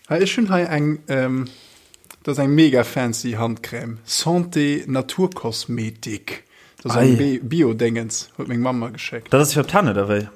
Hei, ech hunn hei eng, dat ass eng mega fancy Handcrème, Santé Naturkosmetik. Dat ass eng Bio-Déngens, huet meng Mamm mer geschéckt. Dat ass fir op d'Hänn, oder wéi?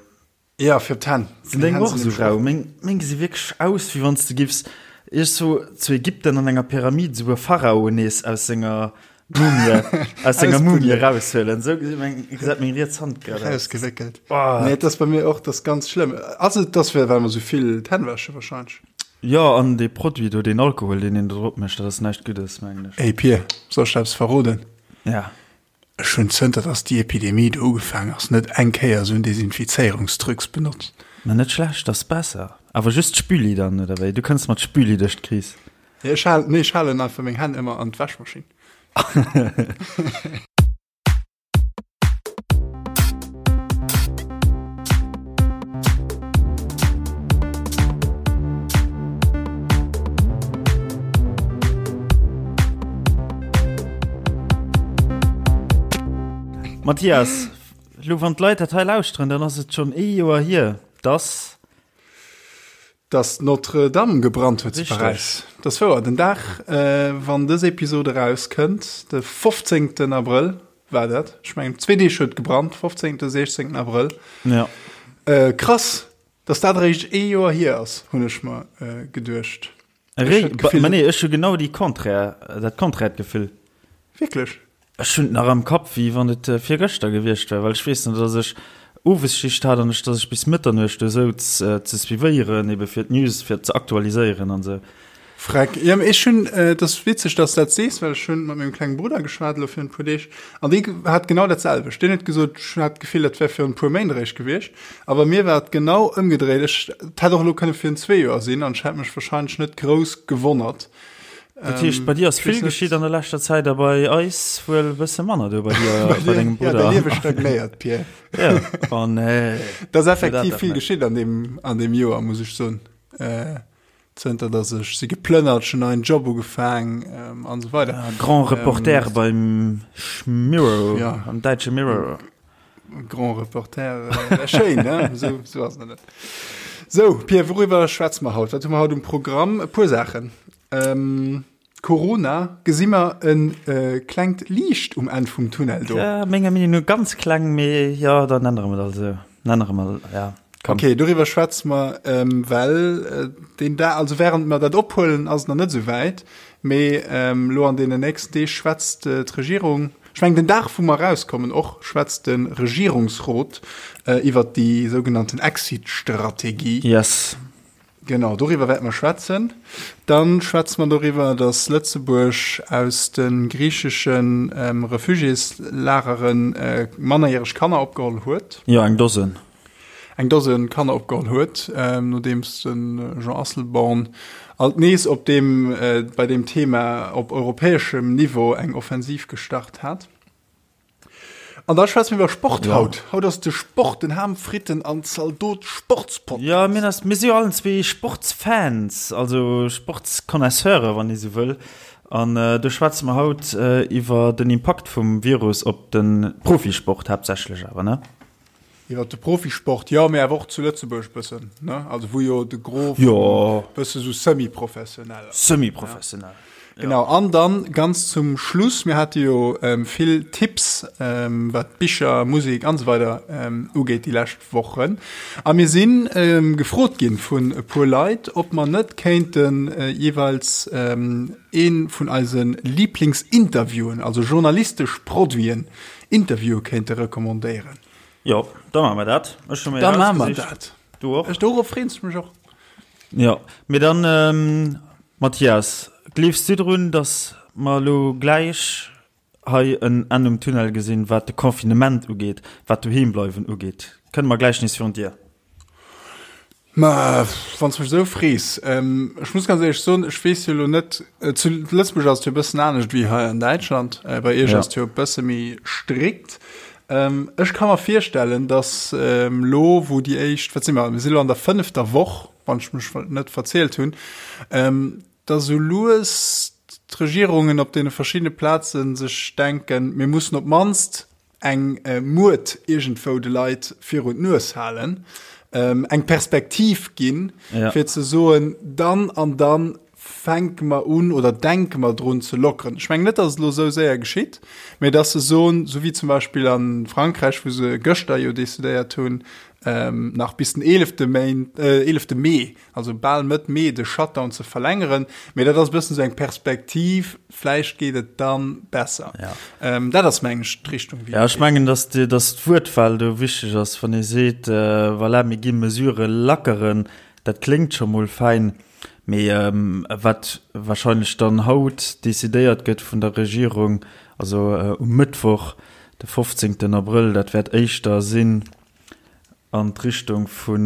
Ja, fir op d'Hänn. Sinn deng och esou rau? Meng, meng gesi wierklech aus, wéi wann s de giffs iergendwou zu Ägypten an enger Pyramid esou e Pharao nees aus senger Mumie, aus senger Mumie eraushuelen. Esou gesi meng, gesäit meng riets Hand grad aus. Rausgewéckelt. Oh. Nee, dat ass bei mir och, dat ass ganz schlëmm. Ass et, dass well mer esou vill d'Hänn wäsche wahrscheinlech? Jo, an dee Produit do, deen Alkohol, deen een do drop mécht, dat ass näischt Guddes, mengen ech. Ey Pir, soll ech der eppes verroden? Ja. Ech hunn zënter dass déi Epidemie do ugefaang ass net eng Kéier esou en Desinfizéierungstrucs benotzt. Ma net schlecht, ass besser. Awer just d'Spüli dann, oder wéi? Du kënns mat Spüli duerch d'Kris. Nee, ech halen, nee, ech halen einfach meng Hänn ëmmer an d'Wäschmaschinn. Mathias, lo wann d'Leit dat hei lauschteren, dann ass et schonn ee Joer hier, dass. Dass d'Notre-Dame gebrannt huet zu Paräis. Dat ass wouer. Den Dag, wann dës Episod erauskënnt, de 15. Abrëll war dat. Ech mengen, zwee Deeg huet et gebrannt, 15., 16. Abrëll. Ja. Krass, dass dat eréischt ee Joer hier ass, hunn ech mer geduecht. Ech hat d'Gefill. Ma nee, ech hu genau déi Contraire, dat konträert Gefill. Wierklech? Ech hunn et nach am Kapp, wéi wann et virgëschter gewiescht wär, well ech weess nach, dass ech Owesschicht hat an ech, dass ech bis Mëtternuecht do souz ze suivéieren, ebe fir d'News, fir ze aktualiséieren an esou. Freck. Jo, mee ech hunn, et ass witzeg, dass de dat sees, well ech hunn mat mengem klenge Brudder geschwat elo virun e puer Deeg an dee hat genau dat selwecht. Deen huet gesot, ech hat d'Gefill, dat wär virun e puer Méint eréischt gewiescht. A bei mir war et genau ëmgedréit. Ech, et hätt och elo kënne virun zwee Joer sinn an ech hätt mech wahrscheinlech net grouss gewonnert. Dat heescht, bei dir ass vill geschitt an der leschter Zäit a bei eis wuel e bësse manner do bei dir, bei dengem Brudder. Ja, däi Liewe stagnéiert, Pierre. Ja, oh nee. Et ass effektiv vill geschitt an deem, an deem Joer, muss ech soen. Zënter dass ech si geplënnert, ech hunn neien Job ugefaang an esou weider. Ja, Grand Reporter ähm, beim Mirror, ja. am däitsche Mirror. Grand Reporter, äh, schéin, ne? So, so ass net. So, Pierre, worüwer schwätze mer haut? Wat hu mer haut um Programm? E puer Saachen. Ähm, Corona, gesi mer en äh, klengt Liicht um Enn vum Tunnel do? Ja, menger Meenung no ganz kleng, mee ja, dann ännere mer dat also. Ännere mer, ja. Komm. Okay, doriwwer schwätze mer, ähm, well äh, den da, also während mer dat ophuelen, ass et nach net esou wäit, mee ähm, lo an deenen nächsten Deeg schwätzt äh, d'Regierung, ech mengen den Dag wou mer erauskommen och, schwätzt de Regierungsrot äh, iwwert déi sougenannten Exit-Strategie. Yes. Genau, doriwwer wäerte mer schwätzen. Dann schwätze mer doriwwer, datt Lëtzebuerg aus de griichesche Refugiéslagere mannerjäreg Kanner opgeholl huet. Jo, eng Dosen. Eng Dosen Kanner opgeholl huet, nodeems de Jean Asselborn alt nees op deem, bei deem Thema op europäeschem Niveau eng Offensiv gestart hat. An da schwätze mir iwwer Sport ja. haut. Haut ass de Sport, den Ham, Fritten an Zaldot Sportspodcast. Ja, mir, ass, mir si jo allen zwee Sportsfans, also Sportsconnaisseure, wann ee sou wëll. An äh, do schwätze mer haut äh, iwwer den Impakt vum Virus op de Profisport haaptsächlech awer, ne? Iwwer de Profisport, jo, mee awer och zu Lëtzebuerg bëssen, ne? Also wou jo de Gros jo. bësse sou semi-professionell ass. Semi-professionell. Ja. Genau, an dann ganz zum Schluss, mir hate jo ähm, vill Tipps, ähm, wat Bicher, Musek an esou weider ähm, ugeet déi lescht Wochen. A mir sinn ähm, gefrot ginn vun e puer Leit, ob mer net kéinten äh, jeeweils ähm, ee vun eise Lieblingsinterviewen, also journalistesch Produiten, Interviewe kéinte recommandéieren. Jo, da maache mer dat. Ech hu mir Da maache mer dat. Du och? Ech, dorop freeën ech mech och. Jo, mee dann, Mathias, gleefs du drun, datt mer elo gläich hei en Enn um Tunnel gesinn, wat de Confinement ugeet, wat d'Doheembleiwen ugeet? Kënne mer gläich nees virun d'Dier? Ma wann s mech esou frees, ech muss ganz éierlech soen, ech weess jo elo net, zu Lëtzebuerg ass et jo e bëssen anescht wéi hei an Däitschland, bei iech ass et jo e bësse méi strikt. Ech ka mer virstellen, datt elo wou déi éischt, wat si mer, mir si elo an der fënnefter Woch, wann ech mech net verzielt hunn, datt esou lues d'Regierungen op deene verschiddene Plaze sech denken, mir mussen op d'mannst eng Muert iergendwou de Leit virun d'Nues halen. eng Perspektiv ginn, fir ze soen, dann an dann fänke mer un oder denke mer drun ze lockeren. Ech mengen net, datt et elo esou séier geschitt, mä datt se soen, esou wéi zum Beispill a Frankräich, wou se gëschter jo decidéiert hunn, nach bis den eelefte Méint, eelefte Mee, also bal Mëtt Mee, de Shutdown ze verlängeren. Mä dat ass e bëssen esou eng Perspektiv, vläicht geet et da besser. Dat ass, mengen ech, d'Richtung, wéi et geet. Jo, ech mengen, datt d'Wuertwahl do wichteg ass, wann ee seet, voilà, mir gi Mesurë lackeren, dat kléngt scho mol fäin. Mee wat wahrscheinlech dann haut decidéiert gëtt vun der Regierung, also um Mëttwoch, de 15 Abrëll, dat wäert éischter sinn an d'Richtung vu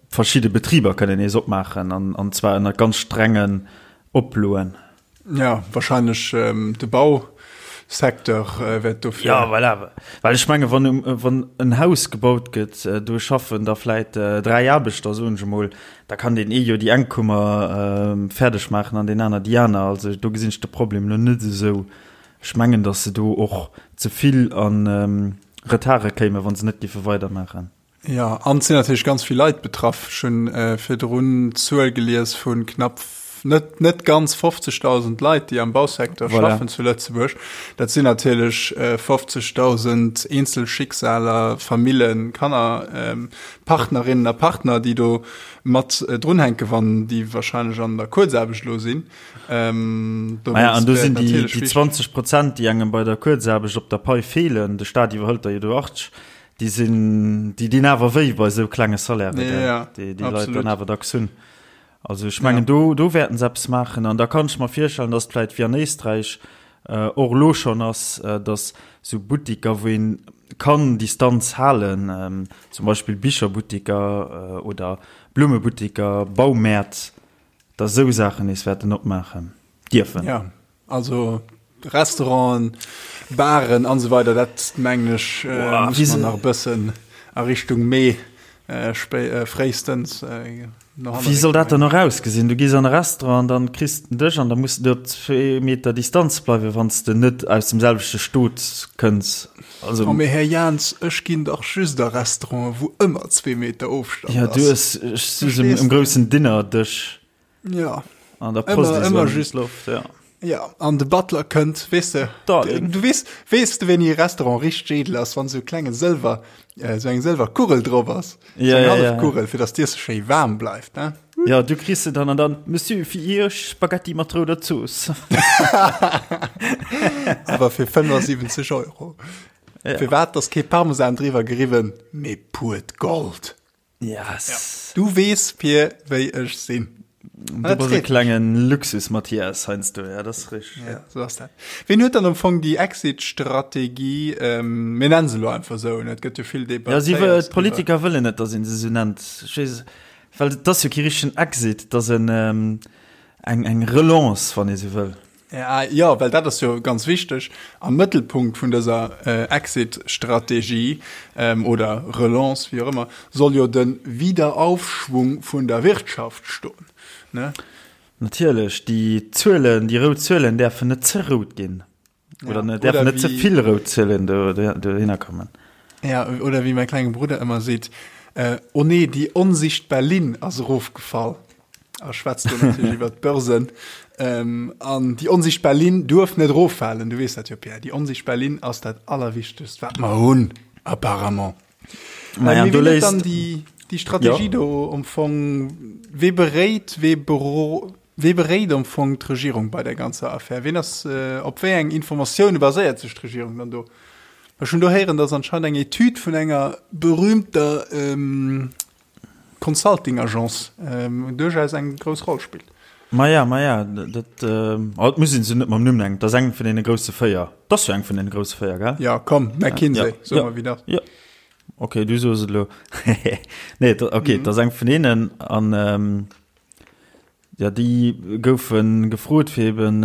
verschidde Betriber kënnen nees opmaachen, an zwar ënner ganz strengen Oploen. Ja, wahrscheinlech de Bausecteur wäert dofir. Ja, voilà. Well ech menge wann, wann en Haus gebaut gëtt, do schaffen da vläit 3 Aarbechter, soen ech emol, da kann deen ee jo déi eng Kummer fäerdeg maachen an deen aner déi aner. Also do gesinn ech de Problem elo net esou. Ech mengen, datt se do och ze vill a Retarde kéimen, wa se net géife weidermaachen. Jo, an et sinn natierlech ganz vill Leit betraff. Ech hunn virdrun d'Zuel gelies vu knapp, net, net ganz 50.000 Leit, déi am Bausecteur voilà. schaffen zu Lëtzebuerg. Dat sinn natierlech 50.000 eenzel Schicksaler, Famillen, Kanner, Partnerinnen a Partner, déi do mat drunhänken, wann déi wahrscheinlech an der Kuerzaarbecht elo sinn. Ähm, ah ja, an do sinn déi, déi 20 Prozent, déi engem bei der Kuerzaarbecht op der Pai feelen, de Staat iwwerhëlt der jo do 80, Déi sinn, déi dinn awer wéi bei esou klenge Salairen, ja, ja, déi déi Leit dann awer dacks hunn. Also ech mengen, ja. do, do wäerten se eppes maachen. An da kann ech mer virstellen, dass et vläit wéi an Éisträich äh, och elo schonn ass, äh, dass sou Buttiker, wou een kann Distanz halen, ähm, zum Beispill Bicherbuttiker äh, oder Blummebuttiker, Baumäert, dass esou Saachen nees wäerten opmaachen dierfen. Ja. Also Restauranten, Baren an esou weider, dat mengen ech muss mer nach e bëssen a Richtung Mee fréistens no hanne. Wéi soll dat dann och ausgesinn? Du gees an e Restaurant an dann kriss de en Dësch an da muss de op zwee Meter Distanz bleiwen, wann s de net aus dem selwechte Stot kënns. Also. Oh mee Här Jans, ech ginn dach just a Restauranten, wou ëmmer zwee Meter Ofstand ass. Ja, du ess just um groussen Dinnerdësch. Ja. An der Post ëmmer, ëmmer just Loft, ja. Ja, an de Butler kënnt, weess de, Darling. Du weess, weess de, wéini e Restaurant richteg edel ass, wann esou e klenge Sëlwer, äh, sou eng Sëlwerkugel drop ass. Ja, Sou eng ja, ja. Hallefkugel, fir dass d'Iesse schéi waarm bleift, ne? Ja, du kriss se dann an dann, Monsieur, fir Iech Spaghetti mat rouder Zooss. Awer fir 75 Euro. Ja. Firwat ass kee Parmesan driwwer geriwwen, mee puert Gold? Yes. Ja. Du wees fir wéi ech sinn. Du bass e klengen Luxus Mathias heiansdo, ja, dat ass richteg. Ja, so ass dat. Wien huet dann am Fong déi Exit-Strategie, ähm, mir nennen se elo einfach esou, ne? Et gëtt jo vill Ja, si wëll, debattéiert d'Politiker wëllen net, datt een se esou nennt. Ech weess, well et ass jo kee richtegen Exit, et ass en, ähm, eng, eng Relance, wann ee sou wëll. Jo, well dat ass jo ganz wichteg. Am Mëttelpunkt vun dëser Exit-Strategie oder Relance, wéi och ëmmer, soll jo de Wiederaufschwung vun der Wirtschaft stoen, ne? Natierlech, déi Zuelen, déi rout Zuelen däerfen net ze rout ginn. Oder däerfen net ze vill rout Zuelen dohinner kommen. Ja, oder wéi mäi klenge Brudder ëmmer seet, Oh nee, déi onsichtbar Linn ass erofgefall. A schwätzt do natierlech iwwer d'Börsen. Ähm, an déi onsichtbar Linn duerf net eroffalen. Du weess dat jo, Pierre. Déi onsichtbar Linn ass dat Allerwichtegst, wat mer hunn, apparemment. Naja, äh, du léist dann déi, déi Strategie ja. do am Fong, wee beréit, wee bero, wee beréit am Fong d'Regierung bei der ganzer Affär? Ween ass, äh, op wéi eng Informatioune baséiert sech d'Regierung dann do? Ech hunn do héieren, dass anscheinend eng Etüd vun enger berühmter ähm, Consulting-Agence duerchaus eng grouss Roll spillt. Maja, maja, dat, oh, et muss een se net mam Numm nennen, dat ass eng vun deene grousse 4. Dat ass jo eng vun deene grousse 4, gell? Ja, komm, McKinsey, ja, soe mer, wéi dat. Ja, okay, du soos et elo. Nee, okay, dat ass eng vun deenen an, Jo, déi goufe gefrot, fir eben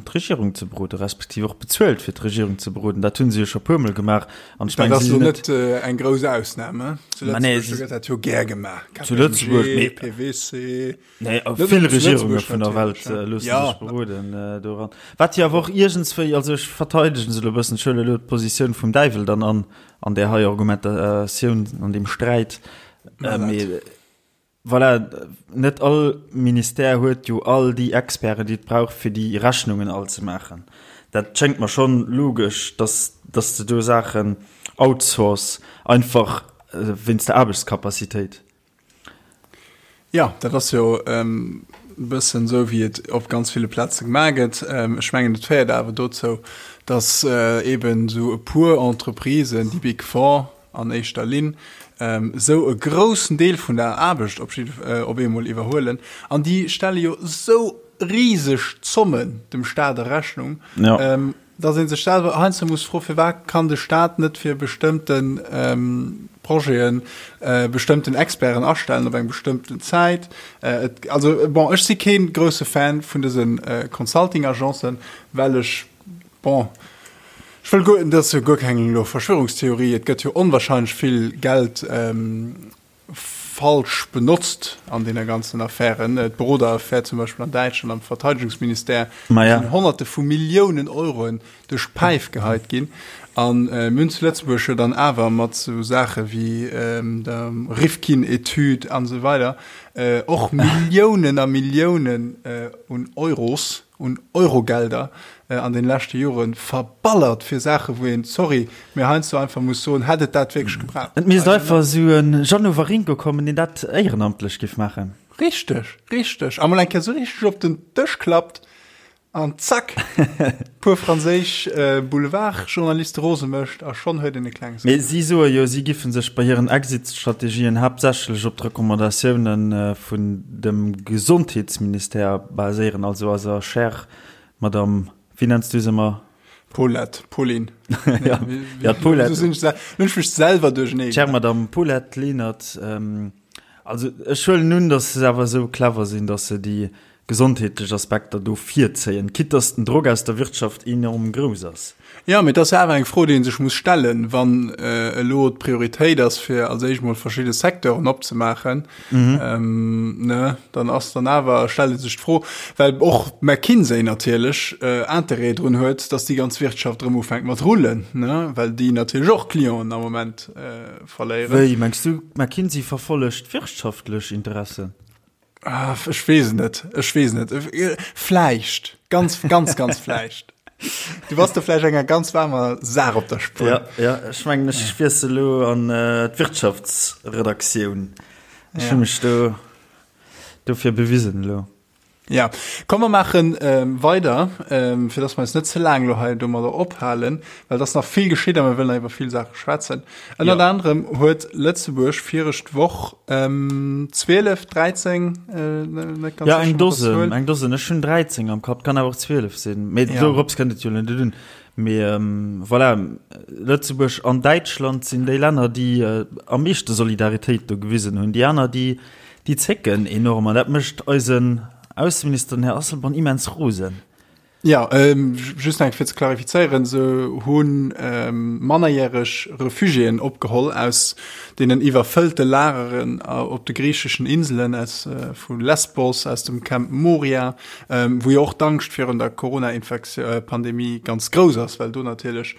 d'Regierung ze beroden, respektiv och bezuelt, fir d'Regierung ze beroden. Dat hu se jo scho puermol gemaach. An ech mengen, dat ass lo net eng grouss Ausnam, he? Zu Lëtzebuerg gëtt dat jo gär gemaach. Zu Lëtzebuerg, mee PwC, nee, vill Regierunge vun der Welt loosse sech beroden doran. Wat jo awer och iergendswéi, also ech verteidegen se elo e bëssen, ech huele elo d'Positioun vum Däiwel dann an, an där hei Argumentatioun, an deem Sträit. Mee voilà, net all Ministère huet jo all déi Experten, déi et brauch, fir déi Rechnungen all ze maachen. Dat schéngt mer schonn logesch, dass, dass de do Saachen outsource, einfach wéinst der Aarbechtskapazitéit. Jo, dat ass jo e bëssen esou, wéi et op ganz ville Plaze gemaach gëtt. Ech mengen, et féiert awer dozou, dass eeben esou e puer Entreprisen, déi Big Four an éischter Linn, esou e groussen Deel vun der Aarbecht op op eemol iwwerhuelen. An déi stelle jo esou riseg Zommen dem Staat a Rechnung. Dass ee sech selwer heiansdo muss froen, firwat kann de Staat net fir bestëmmte Projeten bestëmmten Experten astellen op eng bestëmmten Zäit. Et, also bon, ech si kee grousse Fan vun dëse Consulting-Agencen, well ech, bon, ech wëll guer, dat ass jo guer keng elo Verschwörungstheorie, et gëtt jo onwahrscheinlech vill Geld falsch benotzt an deene ganzen Affären. D'Beroderaffär zum Beispill an Däitschland am Verteidigungsministère, do sinn Honnerte vu Milliounen Euroen duerch d'Päif geheit ginn. A mir hunn zu Lëtzebuerg jo dann awer mat esou Saache wéi der Rifkin-Etüd an esou weider och Milliounen a Milliounen un Euros, un Eurogelder an den leschte Joren verballert fir Saachen wou een, sorry, mee heiansdo einfach muss soen, hätt et dat wierklech gebraucht? Et misst einfach esou en Jeannot Waringo kommen deen dat éierenamtlech giff maachen. Richteg, richteg. A mol eng Kéier esou richteg op den Dësch klappt an zack, puer franséisch Boulevardjournaliste rose mécht a schonn huet een e klenge Mee si soe jo, si giffen sech bei hiren Exit-Strategien haaptsächlech op d'Recommandatiounen vun dem Gesondheetsministère baséieren, also eiser chère Madame, wéi nenns du se ëmmer? Paulette, Pauline. Ja, ja, d'Paulette. Lo sinn ech lo hunn ech mech selwer duerchernee Chère Madame Paulette Lenert, also ech huelen un, datt se awer esou clever sinn, datt se déi gesondheetlech Aspekter do virzéien, quitte datt den Drock aus der Wirtschaft enorm grouss ass. Jo, mee et ass jo awer eng Fro, déi ee sech muss stellen, wann elo d'Prioritéit ass, fir als éischt mol verschidde Secteuren opzemaachen, ne, dann ass dann awer, stellt ee sech d'Fro, well och McKinsey natierlech Interêt drun huet, datt déi ganz Wirtschaft erëm ufänkt mat rullen, ne, well déi natierlech och Clienten am Moment verléieren. Wéi, mengs du, McKinsey verfollegt wirtschaftlech Interessen? Ah, ech weess et net. Ech weess et net. Vläicht. Ganz, ganz, ganz vläicht. Du bass do vläicht enger ganz waarmer Saach op der Spuer. Ja, ja, ech mengen, ech wiessel elo an äh, d'Wirtschaftsredaktioun. Ech ja. hu mech do dofir bewisen elo. Ja, komm mer maachen ähm, weider, ähm, fir dass mer eis net ze laang lo hei domadder ophalen, well et ass nach vill geschitt a mir wëllen nach iwwer vill Saache schwätzen. Ënnert ja. anderem huet Lëtzebuerg viregt Woch ähm, 12, 13, äh, net ganz ja, eng Dosen, eng Dosen. Ech hunn 13 am Kapp, kann awer och 12 sinn. Mee ja. dorops kënnt et jo net un. Mee ähm, voilà, Lëtzebuerg an Däitschland sinn déi Länner, déi äh, am meeschte Solidaritéit do gewisen hunn. Déi aner, déi Déi zécken enorm an dat mécht eisen Ausseminister, den Här Asselborn, immens rosen. Jo, just nach eng Kéier fir ze klarifizéieren, Se hu mannerjäreg Refugiéen opgeholl aus deenen iwwerfëllte Lageren op de griicheschen Inselen, aus vu Lesbos, aus dem Camp Moria, wou jo och d'Angscht virun der Corona-Pandemie ganz grouss ass, well do natierlech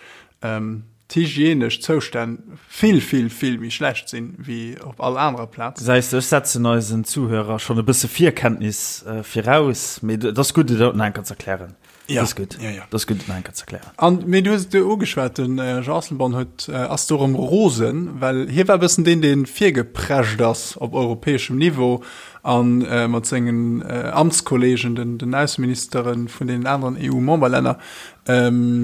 d'hygienesch Zoustänn vill, vill, vill méi schlecht sinn, wéi op all anerer Plaz. Gesäis de, ech setzen eisen Zuhörer schonn e bësse Virkenntnis viraus, mee et ass gutt, et nach eng Kéier ze erklären. Ja, Et ass gutt, ja, ja. et ass gutt, et nach eng Kéier ze erklären. An, mee du hues et jo ugeschwat, den Jean Asselborn huet, ass do erëm rosen, well hie war e bëssen deen, dee virgeprescht ass op europäeschem Niveau a mat sengen Amtskollegen, den, den Ausseministere vun deenen aneren EU-Memberlänner,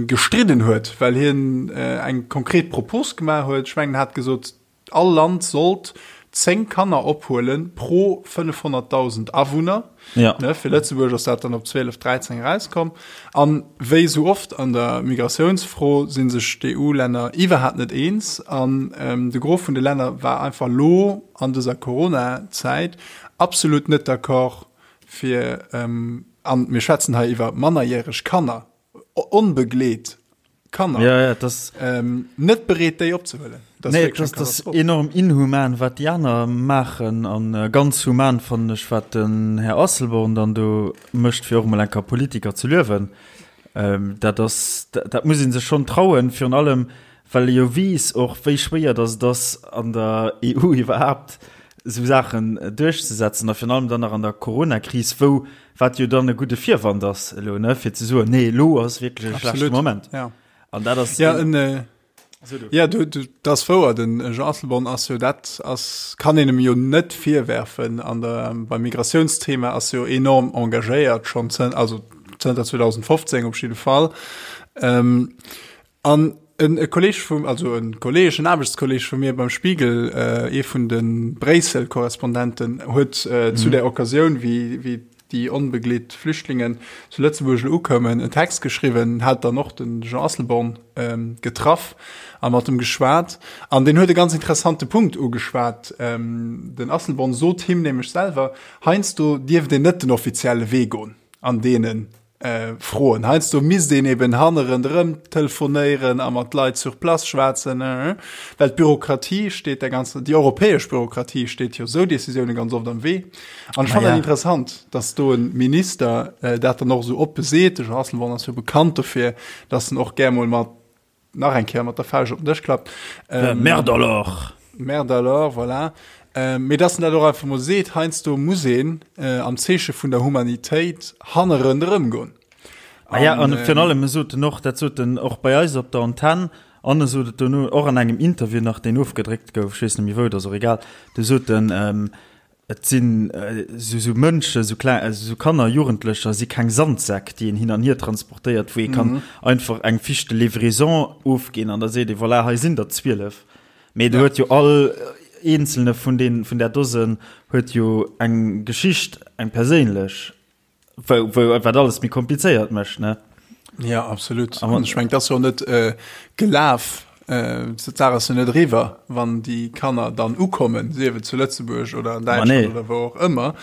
gestridden huet, well hien eng konkret Propos gemaach huet. Ech mengen, en hat gesot, all Land sollt 10 Kanner ophuele pro 500.000 Awunner. Ja. Ne, fir Lëtzebuerg ass dat dann op 12, 13 erauskomm. An wéi esou oft an der Migratiounsfro si sech d'EU-Länner iwwerhaapt net eens. An de Gros vun de Länner war einfach lo an dëser Corona-Zäit absolut net d'accord, fir, an mir schwätzen hei iwwer mannerjäreg Kanner, onbegleet Kanner, ja, ja, das, ähm, net bereet, déi opzehuelen. Das nee, das, das enorm inhuman, wat déi aner maachen an äh, ganz human fannen ech, wat den Här Asselborn dann do mécht, fir och mol eng Kéier Politiker ze luewen. Ähm, dat ass, dat, dat muss ee sech schonn trauen, virun allem. Well e jo weess och, wéi schwéier datt et ass, an der EU iwwerhaapt esou Saachen duerchzesetzen a virun allem dann nach an der Coronakris, wou, wat jo dann e gudde Virwand ass elo, ne, fir ze soen, nee, elo ass wierklech e schlechte Moment. Ja. An dat ass. Ja, en, äh, ja, du, du, dat ass wouer, den Jean Asselborn ass jo dat ass, kann een em jo net virwerfen an der, beim Migratiounsthema ass jo enorm engagéiert schonn zën, also zënter 2015 op jidde Fall. Ähm, An en e Kolleg vum, also en Kolleg, en Aarbechtskolleg vu mir beim Spiegel, ee vun de Bréissel-Korrespondenten, huet zu där Occasioun, wéi, wéi déi onbegleet Flüchtlingen zu Lëtzebuerg elo ukoumen, en Text geschriwwen, hat dann och de Jean Asselborn getraff a mat em geschwat. An deen huet e ganz interessante Punkt ugeschwat. Den Asselborn sot him nämlech selwer, heiansdo dierft een net den offizielle Wee goen an deenen Froen. Heiansdo misst een eben hannerenderëm telefonéieren a mat Leit sur place schwätzen, well d'Bürokratie steet der ganzer, déi europäesch Bürokratie steet jo esou Décisioune ganz oft am Wee. An ech fannen dat interessant, datt do e Minister dat dann och esou oppe seet. De Jean Asselborn ass jo bekannt dofir, datt en och gär mol mat nach eng Kéier mat der Fauscht op den Dësch klappt. Ähm, Merde alors! Merde alors, voilà. Ähm, mee dass en dat och einfach mol seet, heiansdo muss een äh, am Zeeche vun der Humanitéit hannerenderëm goen. Ah ja, an virun allem, e sot en och, dat sot en och bei eis op der Antenn, an e sot et dono och an engem Interview nach, deen ofgedréckt gouf, ech weess net méi wou, et ass och egal, do sot en, ähm, Et sinn esou Mënschen, esou kleng, esou Kanner, Jugendlecher si keng Sandsäck, déi een hin an hier transportéiert, wou ee kann einfach eng Fiche de livraison ofginn an da seet ee, voilà, hei sinn der 12. Mee do huet jo all eenzelne vun deenen, vun där Dosen huet jo eng Geschicht, eng perséinlech. Wou, wou, wat alles méi komplizéiert mécht, ne? Ja, absolut. An ech meng, dat ass jo net äh, gelaf, äh, d'Saach ass jo net eriwwer, wann déi Kanner dann ukommen, sief et zu Lëtzebuerg oder an Däitschland nee. oder wou och ëmmer.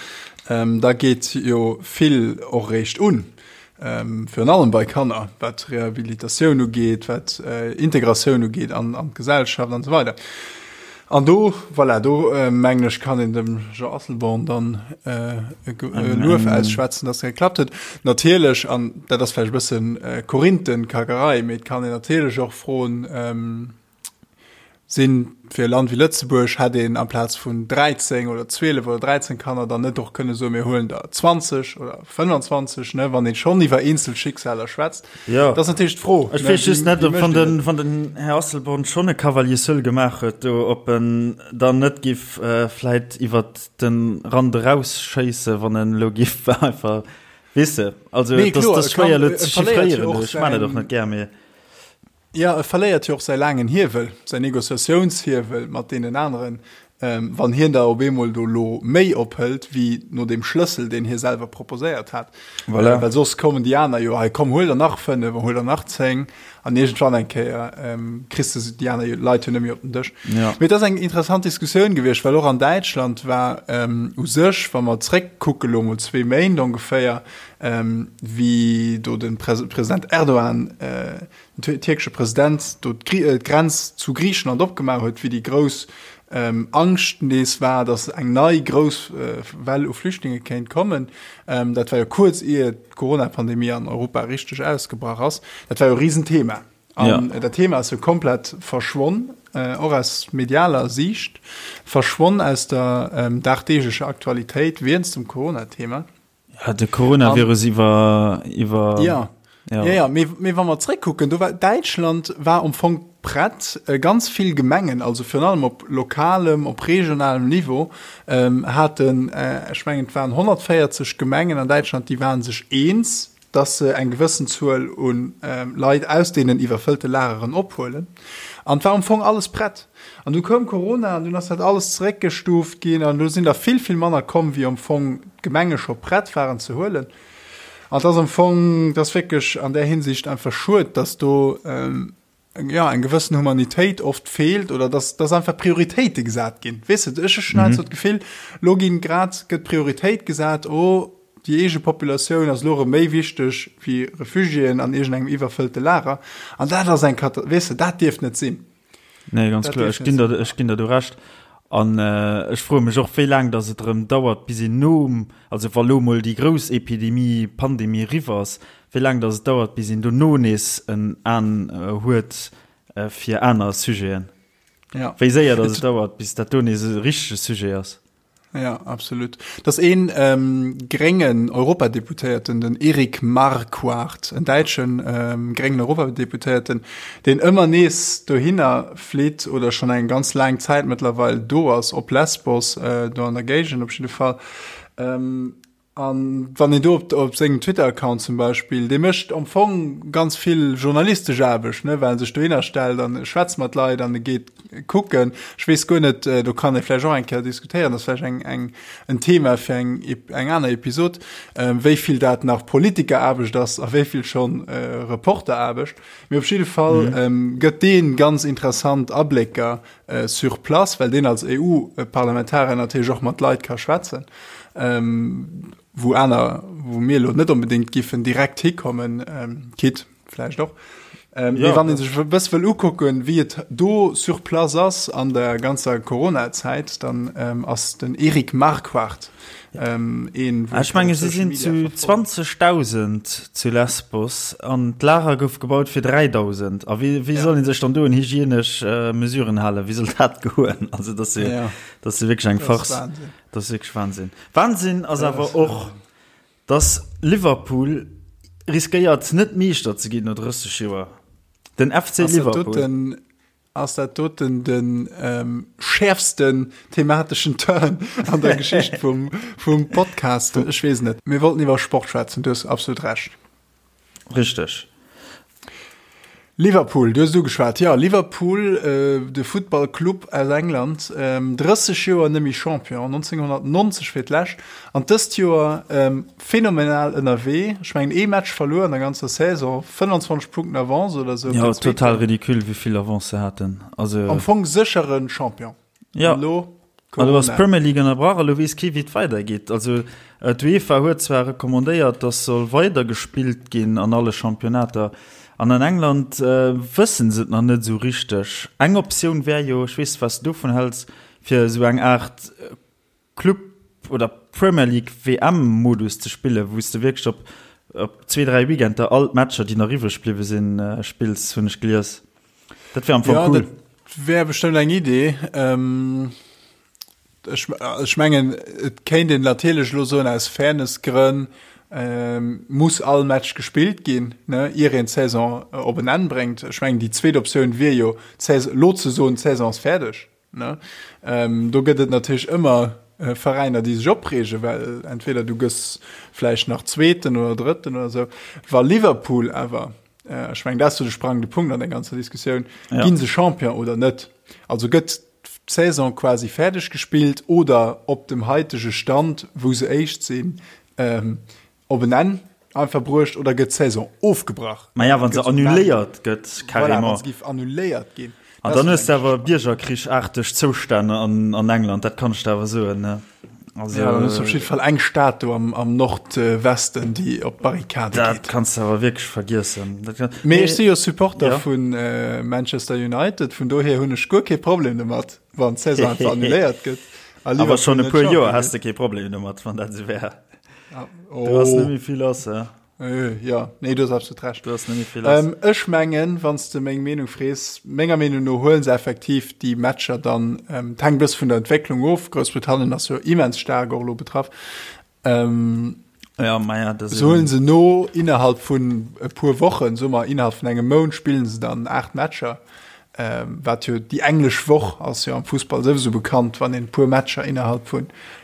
Ähm, da geet jo vill och réischt un. Ähm, virun allem bei Kanner, wat Rehabilitatioun ugeet, wat äh, Integratioun ugeet an, an d'Gesellschaft an esou weider. An do, voilà, do mengen ech, kann een dem Jean Asselborn dann e Luef ausschwätzen, dass dat geklappt huet. Natierlech, an dat ass vläicht e bëssen Korinthenkackerei, mee et kann een natierlech och froen, Sinn fir e Land wéi Lëtzebuerg, hätt een amplaz vun 13 oder 12 oder 13 Kanner dann net och kënne soen, mir huelen der 20 oder 25, ne, wann ee schonn iwwer eenzel Schicksaler schwätzt? Jo. Dat ass natierlech d'Fro. Ech weess just net, ob wann den, wann den Här Asselborn schonn e Cavalier seul gemaach huet do, ob en dann net giff vläit iwwert de Rand erausschéissen, wann en elo giff einfach, weess de, also Nee, et ass, kloer, et ass e kann, schwéier elo e ze verléiert jo chiffréieren, och ech man et och säin, net gär, mee. Jo, e verléiert jo och säi laangen Hiewel, säin Negociatiounshiewel mat deenen aneren, wann hien der op eemol do lo méi ophëlt wéi no deem Schlëssel, deen hie selwer proposéiert hat. Voilà. Well soss kommen déi aner jo, hei komm, huel der nach 5, huel der nach 10 an iergendwann eng Kéier kriss de déi aner Leit jo net méi op den Dësch. Ja. Mee et ass eng interessant Diskussioun gewiescht, well och an Däitschland war u sech, wa mer zréckkucke lo mol zwee Méint ongeféier, wéi do de President Erdogan, den tierkesche President do d'Grenz zu Griichenland opgemaach huet, wéi déi grouss Angscht nees war, datt eng nei grouss Well u Flüchtlinge kéint kommen. Dat war jo kuerz ier d'Corona-Pandemie an Europa richteg ausgebrach ass. Dat war jo e Risenthema. An dat Thema ass jo komplett verschwonn, och aus medialer Siicht, verschwonn aus der dagdeeglecher Aktualitéit wéinst dem Corona-Thema. Ja, de Coronavirus iwwer iwwer ja. Ja. Ja, ja. Mee, mee wa mer zréckkucken, do war Däitschland war am Fong prett, äh, ganz vill Gemengen, also virun allem op lokalem, op regionalem Niveau, ähm, haten, äh, ech mengen et waren 140 Gemengen an Däitschland, déi waren sech eens, dass se eng gewëssen Zuel un ähm, Leit aus deenen iwwerfëllte Lageren ophuelen. An et war am Fong alles prett. An du koum Corona an dunn ass dat alles zeréckgestuuft ginn an do sinn der vill, vill manner komm, wéi am Fong d'Gemenge scho prett waren ze huelen. An et ass am Fong, et ass wierklech an där Hinsicht einfach schued, dass do jo eng gewëssen Humanitéit oft feelt oder dass, dass einfach Prioritéite gesat ginn. Weess de, ech hunn heiansdo d'Gefill, elo ginn grad, gëtt Prioritéit gesat, oh, déi eege Populatioun ass elo erëm méi wichteg wéi Refugiéen an iergendengem iwwerfëllte Lager. An dat ass eng Kata-, weess de, dat dierft net sinn. Nee, ganz kloer, ech ginn der, ech ginn der do Recht. An äh, ech froe mech och, wéi laang dass et erëm dauert, bis een nom, also wa lo mol déi grouss Epidemie, Pandemie eriwwer ass, wéi laang dass et dauert, bis een dono nees en An huet. fir aner Sujeten. Ja. Wéi séier dass et dauert, bis dat do nees e richtege Sujet ass. Ja, absolut. Dass een ähm, gréngen Europadeputéierten, den Erik Marquardt, en däitschen ähm, gréngen Europadeputéierten, deen ëmmer nees dohinner flitt oder schon eng ganz laang Zäit mëttlerweil do ass, op Lesbos, äh, do an der Géigend op jidde Fall, ähm, An wann een do op, op sengem Twitter-Account zum Beispill, dee mécht am Fong ganz vill journalistesch Aarbecht, ne, well en sech dohinner stellt an e schwätzt mat Leit an e geet kucken. Ech weess guer net, äh, do kann ee vläicht och eng Kéier diskutéieren, dat ass vläicht eng, eng, en Thema fir eng, eng aner Episod, äh, wéi vill dat nach Politikeraarbecht ass a wéi vill schonn äh, Reporteraarbecht. Mee op jidde Fall mhm. ähm, gëtt dee ganz interessant Ablécker äh, sur place, well deen als EU-Parlamentarier natierlech och mat Leit ka schwätzen, ähm, wou aner, wou mir lo net onbedéngt giffen direkt hikommen, ähm, Kit vläicht och. Ähm, ja, wann een sech e bësse wëll ukucken, wéi et do sur place ass an der ganzer Corona-Zäit, dann ähm, ass den Eric Marquardt Ähm, een, ah, ech menge si sinn zu 20.000 zu Lesbos an d'Lager gouf gebaut fir 3.000. A wéi, wéi ja. soll een sech dann do un hygienesch äh, Mesuren halen? Wéi soll dat goen? Also dat si ja. dat si wierklech eng Farce. Dat ass wierklech Wahnsinn. Wahnsinn ass awer och, dass Liverpool riskéiert net Meeschter ze ginn no 30 Joer. Den FC Liverpool. Ass dat doten de schäerfsten themateschen Turn an der Geschicht vum, vum Podcast? Ech weess net. Mir wollten iwwer Sport schwätzen, du hues absolut Recht. Richteg. Liverpool, du hues et ugeschwat. Jo, Liverpool, de Futtballclub aus England, 30 Joer net méi Champion, 1990 fir d'lescht an dëst Joer Phänomenal ënnerwee. Ech mengen ee Match verluer an der ganzer Saison, 25 Punkten Avance oder sou. Jo, total ridicule wéi vill Avance se haten. Also am Fong séchere Champion. Jo. An elo Corona. Elo ass d'Premier League ënnerbrach a lo weess kee wéi et weidergeet. Also d'UEFA huet zwar recommandéiert, datt soll weider gespillt ginn an alle Championnater. An an England wësse se et nach net esou richteg. Eng Optioun wär jo, ech weess net wat s de dovun häls, fir esou eng Aart Club oder Premier League WM Modus ze spillen, wou s de wierklech op op zwee, dräi Weekender all d'Matcher, déi nach iwwreg bliwwe sinn, spills, hunn ech gelies. Dat wär am Fong cool. Ja, dat wär bestëmmt eng Idee. Ech, ech mengen, et kéint een natierlech elo soen, aus Fairness-Grënn muss all Match gespillt ginn, ne, ier een d'Saison op en Enn bréngt. Ech mengen, déi zweet Optioun wier jo, d'Saison, elo ze soen, d'Saison ass fäerdeg. Ne? Ähm, do gëtt et natierlech ëmmer äh, Veräiner, déi sech opreegen, well entweder du gëss vläicht nach Zweeten oder Drëtten oder sou. Wa Liverpool awer, äh, ech mengen, dat ass jo de sprangende Punkt an der ganzer Diskussioun, ja. ginn se Champion oder net? Also gëtt d'Saison quasi fäerdeg gespillt oder op dem haitege Stand, wou se éischt sinn, ähm, op en Enn einfach bruecht oder gëtt d'Saison ofgebrach? Maja, wa se annuléiert gëtt, carrément. Voilà, wa se géif annuléiert ginn. An dann hues de awer biergerkrichaarteg Zoustänn an, an England, dat kann ech der awer soen, ne? Also, ja, dann hues du op jidde Fall eng Stad do am, am Nordwesten, déi op d'Barrikade geet. Dat kanns de awer wierklech vergiessen. Dat kann, Mee ech si jo Supporter ja. vun äh, Manchester United, vun dohier hunn ech guer kee Problem domat, wann d'Saison einfach annuléiert gëtt. Awer schonn e puer Joer has de kee Problem domat, wann dat esou wär. Oh. Du hast nämlich viel lass, ja. Äh, ja, nee, du hast absolut recht. Du hast nämlich viel lass. Ähm, ech mengen, wann du meng Meenung frees, menger Meenung no huelen se effektiv déi Matcher dann, ähm, hängt bësse vun der Entwécklung of. Groussbritannien ass jo immens staark och elo betraff. Ähm, ja, ma ja, das so huelen se no innerhalb vun e puer Wochen, so mal innerhalb vun engem Mount spillen se dann 8 Matcher. Wat jo déi englesch Woch ass jo am Fussball souwisou bekannt, wann een e puer Matcher innerhalb vu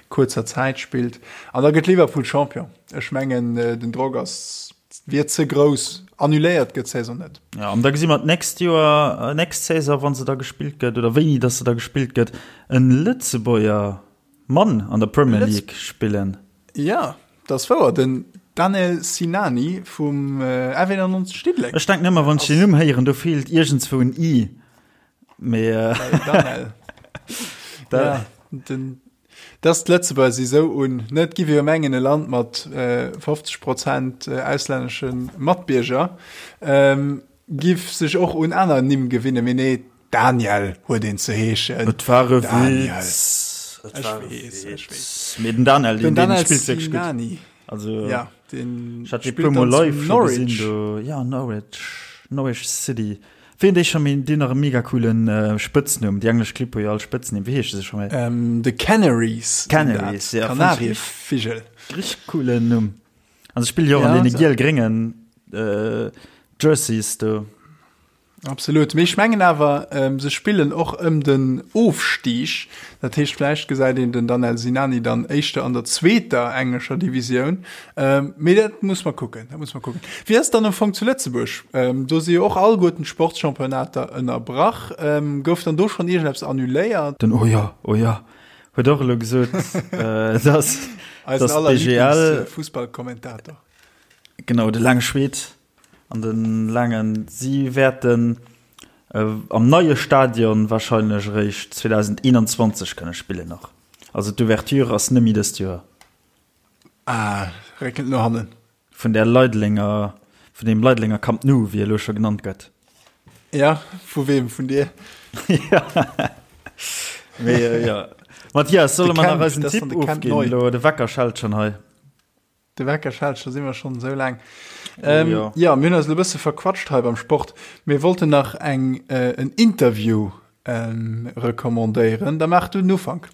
kuerzer Zäit spillt. An da gëtt Liverpool Champion. Ech mengen den Drock ass wier ze grouss. Annuléiert gëtt d'Saison net. Jo, an da gesi mer d'nächst Joer, nächst Saison, wa se da gespillt gëtt oder wéini datt se da gespillt gëtt, en Lëtzebuerger Mann an der Premier League spillen. Jo, dat ass wouer, den Danel Sinani vum F91 Diddeleng. Ech denken ëmmer, wann ech den Numm héieren, do feelt iergendswou en i. Mee. Danel. Ja, den, dass d'Lëtzebuerger si sou un, ne, et giff ee jo mengen, e Land mat 50 Prozent auslännesche Matbierger giff sech och un aner Nimm gewinnen, mee nee, Daniel huet een ze heeschen. Et war e Witz. Et war e Witz. Mee den Daniel, den, den spillt wierklech gutt. Also, ja, den ich hat spillt puer Mol live Norwich. Gesinn, do. Ja, Norwich. Norwich City. Wéi hunn déi scho méi, déi hunn nach e mega coolen Spëtznumm, déi englesch Clibb hu jo all Spëtznimm, wéi heesche se scho méi? The Canaries. Canaries, ja. Kanarievigel. Richteg coolen Numm. An se spille jo och an deene giel-gréngen Jerseys do. Absolut. Mee ech mengen awer, se spillen och ëm den Ofstig. Dat heescht, vläicht gesäit een den Danel Sinani dann éischter an der zweeter englescher Divisioun. Mee dat muss mer kucken, dat muss mer kucken. Wéi ass et dann am Fong zu Lëtzebuerg? Do si jo och alleguerten d'Sportschampionnater ënnerbrach. Gouf dann do schonn iergendeppes annuléiert? Den Oh jo, oh jo huet och elo gesot, dass Eisen dass aller d'BGL. Lieblingsfussballkommentator. Genau, de laange Schweed. An de laangen, si wäerten am neie Stadion warscheinlech eréischt 2021 kënne spillen nach. Also d'Ouverture ass net méi dëst Joer. Ah, réckelt no hannen. Vun där Leidelenger, vun deem Leidelenger Camp Nou, wéi e elo scho genannt gëtt. Ja, vu weem? Vun dir? Ja. Mee jo. Mathias, solle mer nach eisen Tipp ofginn elo? De Wecker schellt schonn hei. De Wecker schellt, scho si mer schonn esou laang. Ähm, jo. ja, mir hunn eis e bësse verquatscht hei beim Sport. Mir wollten nach eng äh, en Interview ähm, recommandéieren. Da maach du den Ufank.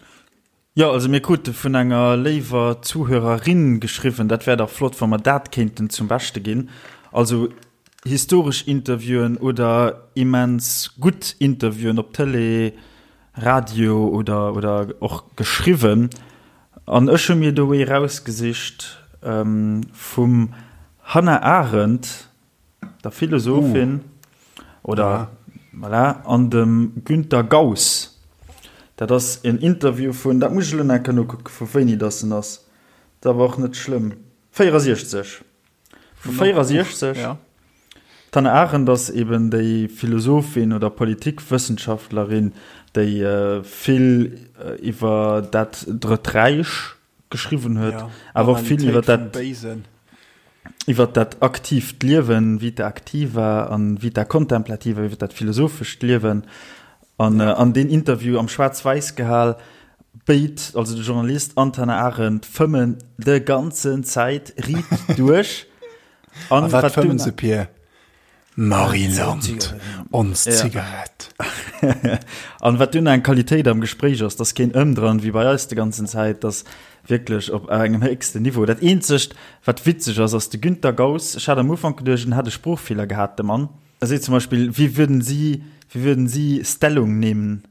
Jo, also mir krute vun enger léiwer Zuhörerin geschriwwen, dat wär dach flott, wa mer dat kéinten zum Beschte ginn. Also historesch Interviewen oder immens gutt Interviewen op Tëlee, Radio oder, oder och geschriwwen. An ech hu mir do ee rausgesicht vum Hannah Arendt, der Philosophin, oder voilà, an dem Günter Gauss. Dat ass en Interview vun, dat muss ech elo nach eng Kéier nokucken, vu wéini dass en ass, dat ass awer och net schlëmm, 64. Vu 64. Ja. D'Hannah Arendt ass eben déi Philosophin oder Politikwëssenschaftlerin, déi vill iwwer dat Drëtt Räich geschriwwen huet, ja, awer och vill iwwer dat, iwwer dat aktiivt Liewen, Vita activa an Vita contemplativa, iwwer dat philosophescht Liewen. An ja. an deen Interview am Schwaarz-Wäiss gehal, béid, also de Journalist an d'Hannah Arendt, fëmmen de ganzen Zäit riit duerch. An a wat fëmmen se, Pir? Marie-Land, ons Zigarett. An wat dunn eng Qualitéit am Gespréich ass, dass keen Ëmdran wéi bei eis de ganzen Zäit, dass wierklech op engem héchsten Niveau. Dat eenzegt, wat witzeg ass, ass de Günter Gauss, ech hat am Ufank geduecht, en hätt e Sproochfeeler gehat, de Mann. Er seet zum Beispill, Wie würden Sie, wie würden Sie Stellung nehmen?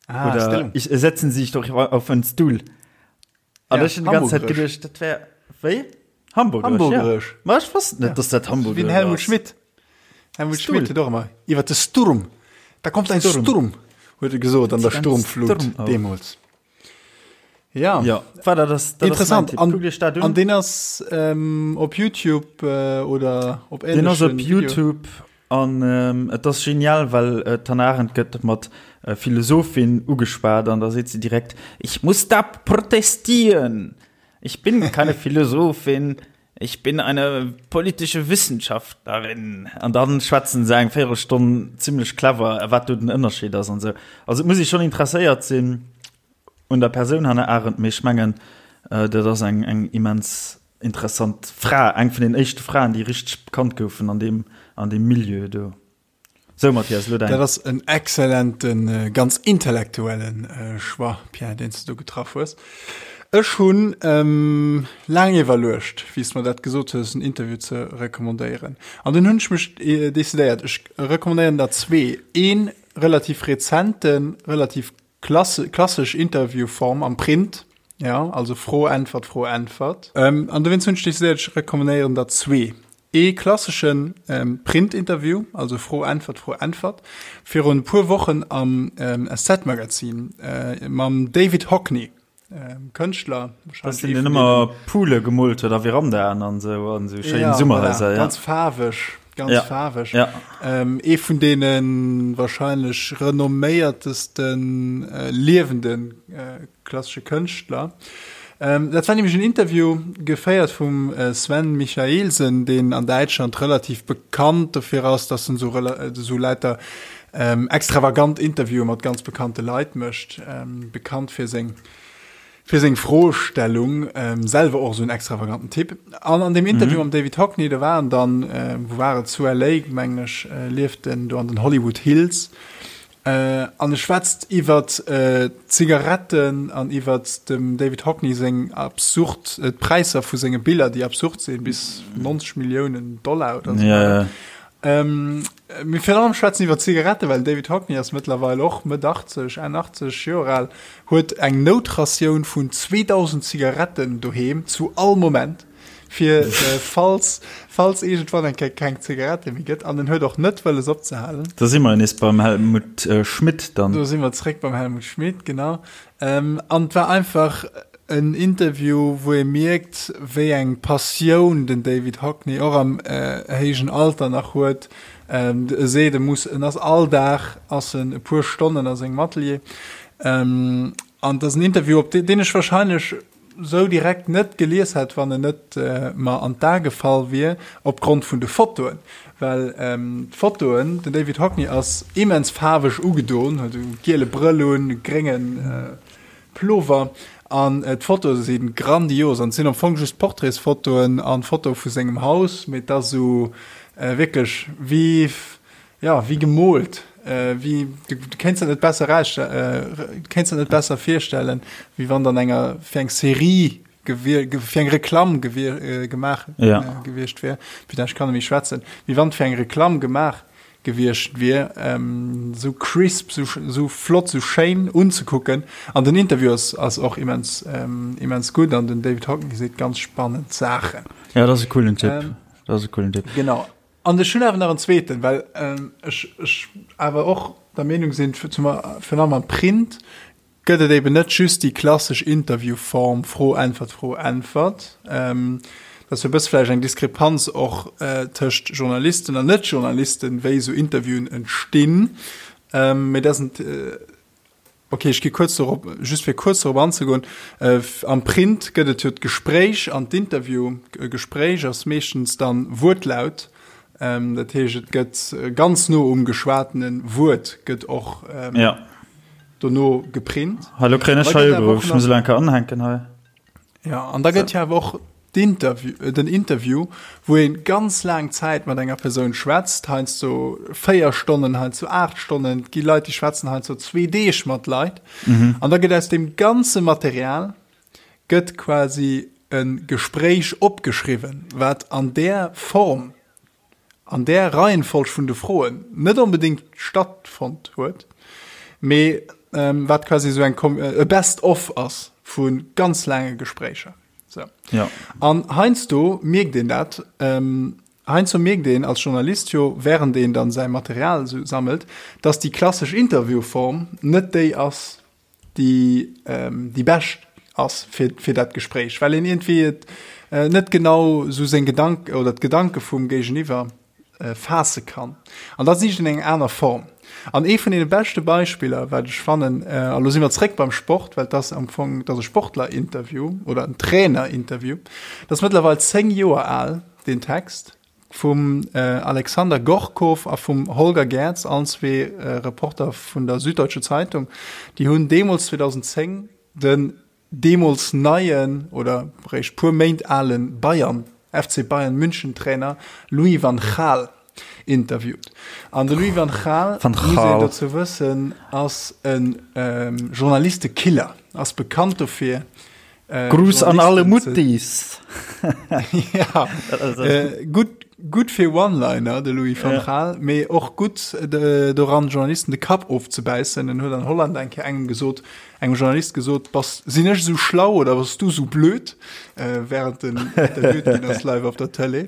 Ah, Oder Stellung. Ich, setzen Sie sich doch auf einen Stuhl. An Ja, ech hun die ganze Zeit Hamburgesch. geduecht, dat wär, wéi? Hamburgesch, Hamburgesch. Ja. Ma ech wosst net, Ja. dass dat Wéi Hamburgesch den Helmut ass. Schmidt. Helmut Stuhl. Schmidt huet och ëmmer iwwer de Sturm. Da kommt ein Sturm. Sturm, huet e gesot an der Ein Sturmflut Sturm auf. deemools. Ja. Ja, war dat ass, dat ass mein Interessant. Tipp. An, Kuckt iech dat un. an deen ass ähm, op YouTube äh, oder op Den ass op ähnlechen Video. YouTube an ähm, et ass genial, well äh, d'Hannah Arendt gëtt mat äh, Philosophin ugeschwat an da seet sie direkt, Ich muss da protestieren. Ich bin keine Philosophin, ich bin eine politische Wissenschaftlerin. An dann schwätzen se eng Véierelstonn zimmlech clever, wat do den Ënnerscheed ass an sou. Also et muss ee schonn interesséiert sinn un der Persoun Hannah Arendt, mee ech mengen, dat ass eng eng immens interessant Fra, eng vun den éischte Fraen, déi richteg bekannt goufen an deem an deem Milieu do. Sou Mathias, elo däin. Dat ass en exzellenten, ganz intellektuellen Choix, Pierre, deen s de do getraff hues. Ech hunn laang iwwerluecht, wéi s de mer dat gesot hues, en Interview ze recommandéieren. An dunn hunn ech mech decidéiert, ech recommandéieren der zwee. Ee relativ rezenten, relativ Klassesch Interviewform am Print, ja, also Fro, Äntwert, Fro, Äntwert. Ähm, an dowéinst hunn ech decidéiert, ech recommanéieren der zwee. Ee klasseschen ähm, Print-Interview, also Fro, Äntwert, Fro, Äntwert, virun e puer Wochen am ähm, SZ-Magazin äh, mam David Hockney, ähm, Kënschtler. Das den, den ëmmer Poole gemoolt huet a Verandaen an sou an sou schéin ja, Summerhaiser. Voilà, ja. Ganz faarweg, ganz ja. faarweg. Ja. Ähm, ee vun deene wahrscheinlech renomméiertesten äh, liewenden äh, klassesche Kënschtler. Ähm, dat war nämlich en Interview geféiert vum äh, Sven Michaelsen, deen an Däitschland relativ bekannt dofir ass, dass en so, äh, so lauter ähm, extravagant Interviewe mat ganz bekannte Leit mécht, ähm, bekannt fir seng. Fir seng Froestellung, selwer och esou en extravaganten Typ. An an deem Interview mam David Hockney, do war en dann, wou war et, zu LA, mengen ech, lieft en do an den Hollywood Hills. An e schwätzt iwwert d'Zigaretten an iwwert dem David Hockney seng absurd, d'Präisser vu senge Biller, déi absurd sinn, bis 90 Milliounen Dollar oder esou. Ja, ja. Mee virun allem schwätzen iwwer Zigaretten, well den David Hockney ass mëttlerweil och Mëtt 80, Enn 80 Joer al, huet eng Noutratioun vun 2.000 Zigaretten doheem zu all Moment, fir falls, falls iergendwann eng Kéier keng Zigarette méi gëtt. An en huet och net wëlles opzehalen. Do si mer nees beim Helmut Schmidt dann. Do si mer zréck beim Helmut Schmidt, genau. An et war einfach en Interview, wou ee mierkt, wéi eng Passioun den David Hockney och am héijen Alter nach huet. E seet, e muss, en ass all Dag ass en e puer Stonnen a sengem Atelier. An et ass en Interview, op deen ech wahrscheinlech sou direkt net gelies hätt, wann en net mer an d'A gefall wier, opgrond vun de Fotoen. Well d'Fotoen, den David Hockney ass immens faarweg ugedoen, huet e giele Brëll un, e grénge Plover, an d'Fotoe si grandios. An et sinn am Fong just Portraitsfotoen an Fotoe vu sengem Haus, mee et ass esou wierklech wéi, jo, wéi gemoolt, wéi, du kéints dat net besser eraus, du kéints dat net besser virstellen, wéi wann et an enger, fir eng Serie gewier, fir eng Reklamm gewier, gemaach ja. gewiescht wier. Putain, ech kann net méi schwätzen. Wéi wann et fir eng Reklamm gemaach gewiescht wier. Ähm, sou crisp, sou, sou flott, sou schéin unzekucken. An den Interview ass, ass och immens, ähm, immens gutt an den David Hockney seet ganz spannend Saachen. Ja, dat ass e coolen Tipp. Ähm, dat ass e coolen Tipp. Genau. An ech hunn awer nach en zweeten, well ähm, ech, ech awer och der Meenung sinn, zum, virun allem am Print, gëtt et eben net just déi klassesch Interviewform, Fro, Äntwert, Fro, Äntwert. Dat ass jo e bësse vläicht eng Diskrepanz och tëscht Journalisten an Net-Journalisten, wéi esou Interviewen entstinn. Mee dat ass en, okay, ech gi kuerz dorop, just fir kuerz dorop anzegoen, Am Print gëtt et jo d'Gespréich an d'Interview. E Gespréich ass meeschtens dann Wuertlaut, dat heescht, et gëtt ganz no um geschwatene Wuert gëtt och dono geprint. Hallo kréien ech hei ugeruff, ech muss elo eng Kéier anhänken hei. Ja, an da gëtt jo awer och d'Interview, äh, den Interview, wou ee ganz laang Zäit mat enger Persoun schwätzt, heiansdo 4 Stonnen, heiansdo 8 Stonnen, et gi Leit, déi schwätzen heiansdo zwee Deeg mat Leit. Mhm. An da gëtt aus deem ganze Material gëtt quasi e Gespréich opgeschriwwen, wat an där Form an där Reihenfolg vun de Froen net onbedéngt stattfonnt huet, mee wat quasi esou eng e Best of ass vu ganz laange Gespréicher. Sou. Ja. An heiansdo mierkt een dat, heiansdo mierkt een als Journalist jo, während een dann säi Material esou sammelt, dass déi klassesch Interviewform net déi ass, déi déi bescht ass fir fir dat Gespréich, well een iergendwéi et net genau esou seng Gedank oder d'Gedanke vum Géigeniwwer faasse kann. An da sicht een eng aner Form. An ee vun deene beschte Beispiller, wat ech fannen, a lo si mer zréck beim Sport, well et ass am Fong, et ass e Sportlerinterview oder en Trainerinterview, dat ass mëttlerweil 10 Joer al, deen Text, Vum Alexander Gorkow a vum Holger Gerz, allen zwee Reporter vun der Süddeutsche Zeitung, déi hunn deemools 2010 den deemools neien oder réischt puer Méint ale Bayern, FC Bayern München Trainer Louis van Gaal interviewt. An de Louis van Gaal, muss een dozou wëssen, ass e Journalistekiller, ass bekannt dofir, Äh, Gruß an alle Muttis. ja, äh, gutt, gutt fir One-Liner, de Louis van Gaal, mee och gutt äh, doran Journalisten de Kapp ofzebäissen. En huet an Holland eng Kéier engem gesot, engem Journalist gesot, bass, sinn ech esou schlau oder bass du esou blöd, äh, während en interviewt ginn ass live op der Tëlee.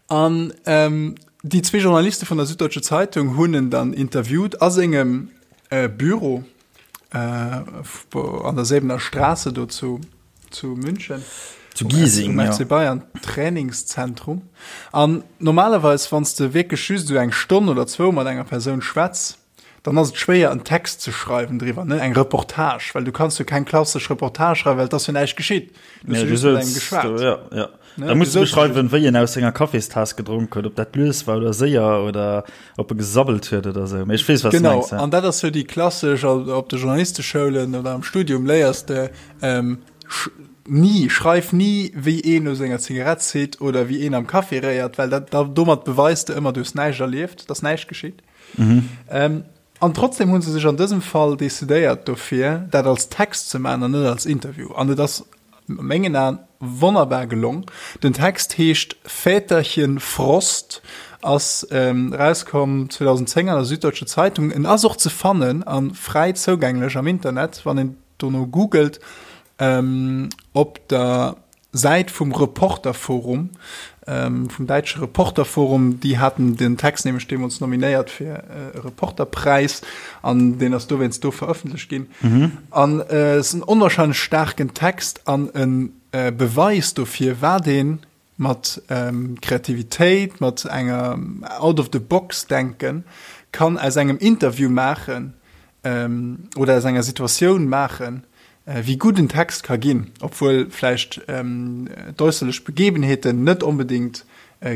An ähm, déi zwee Journaliste vun der Süddeutsche Zeitung hunn en dann interviewt a sengem äh, Büro äh, an der Säbener Straße do zu, zu München. Zu Giesing, um FC Bayern Trainingszentrum. An normalerweis, wann s de wierklech just esou eng Stonn oder zwou mat enger Persoun schwätz, dann ass et schwéier en Text ze schreiwen driwwer, ne, eng Reportage, well du kanns jo keng klassesch Reportage schreiwen, well et ass jo näischt geschitt. Du hues jo just mat engem geschwat. Ja, ja. Ne? Da muss du beschreiwen, wéi en aus senger Kaffeestaass gedronk huet, ob dat lues war oder séier oder ob e gesabbelt huet oder sou. Mee ech weess, wat du mengs. Genau, an dat ass jo déi klassesch, op de Journalisteschoulen oder am Studium léiers de, ähm, ni, schreif ni, wéi een u senger Zigarett zitt oder wéi een am Café réiert, well dat, da, domat beweis de ëmmer, du hues näischt erlieft, et ass näischt geschitt. Mhm. Ähm, an trotzdem hunn se sech an dësem Fall decidéiert dofir, dat als Text ze maachen an net als Interview. An et ass a mengen Aen wonnerbar gelong. Den Text heescht Väterchen Frost, ass ähm, rauskomm 2010 an der Süddeutsche Zeitung. En ass och ze fannen a fräi zougänglech am Internet, wann een dono googelt, ähm, op der Säit vum Reporterforum, vum däitsche Reporterforum, déi haten den Text nämlech deemools nominéiert fir e Reporterpräis an deen ass dowéinst do verëffentlecht ginn. An et ass en onwahrscheinlech staarken Text an e Beweis dofir, wat ee mat Kreativitéit, mat enger Out-of-the-box-Denken kann aus engem Interview maachen oder aus enger Situatioun maachen, wéi gutt en Text ka ginn, obwuel vläicht d'äusserlech Begebenheeten net onbedéngt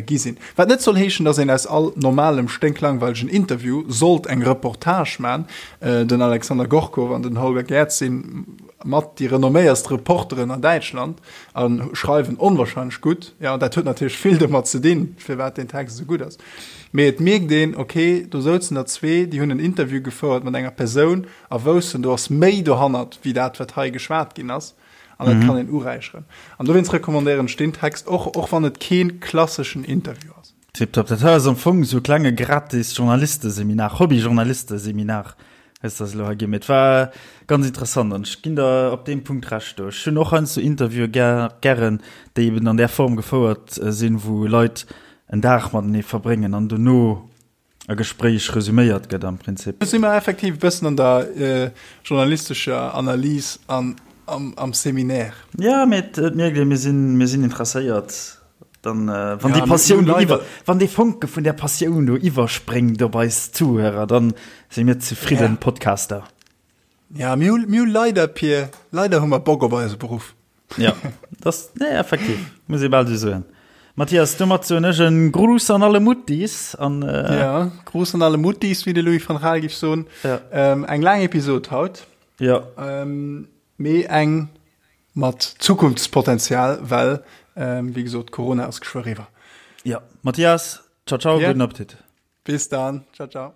gi sinn. Wat net soll heeschen, datt een aus all normalem, sténklangweilegen Interview sollt eng Reportage man. Den Alexander Gorkow an den Holger Gerz si mat déi renomméierst Reporteren an Däitschland a schreiwen onwahrscheinlech gutt. Jo, dat huet natierlech vill domat ze dinn, firwat deen Text esou gutt ass. Mee et mierkt een, ok, do souzen der zwee, déi hunn en Interview gefouert mat enger Persoun a woussen, do ass méi dohannert wéi dat, wat hei geschwat ginn ass. An dat kann een uräicheren. An dowéinst recommandéieren ech deen Text och, och wann et kee klasseschen Interview ass. Tiptop. Dat hei ass am Fong esou e klenge gratis Journalisteseminar, Hobby-Journalisteseminar hues de eis elo hei ginn. Mee et war ganz interessant an ech ginn der op deem Punkt Recht do. Ech hunn och heiansdo Interviewe gären, déi eben an där Form gefouert sinn, wou Leit en Dag matenee verbréngen an dono e Gespréich resüméiert gëtt am Prinzip. Do si mer effektiv e bëssen an der journalistescher Analys an am Seminaire. Jo, mee et mierkt ee, mir sinn, mir sinn interesséiert. Dann, wann déi Passioun do iwwer, wann dee Fonke vun där Passioun do iwwerspréngt op eis Zuhörer, dann si mir zefridden Podcaster. Ja, mir hu, mir hu leider, Pir, leider hu mer Bock op eise Beruff. Ja, das, nee, effektiv, muss ee bal esou soen. Mathias, domat soen ech en Gruß an alle Muttis an. Äh, ja, Gruß an alle Muttis, wéi de Louis van Gaal géif soen. Ja. Ähm, eng laang Episod haut. Ja. Ähm, mee eng mat Zukunftspotenzial, well, ähm, wéi gesot, Corona ass geschwë eriwwer. Ja, Mathias, ciao, ciao, ja. guten Appetit. Bis dann, ciao, ciao.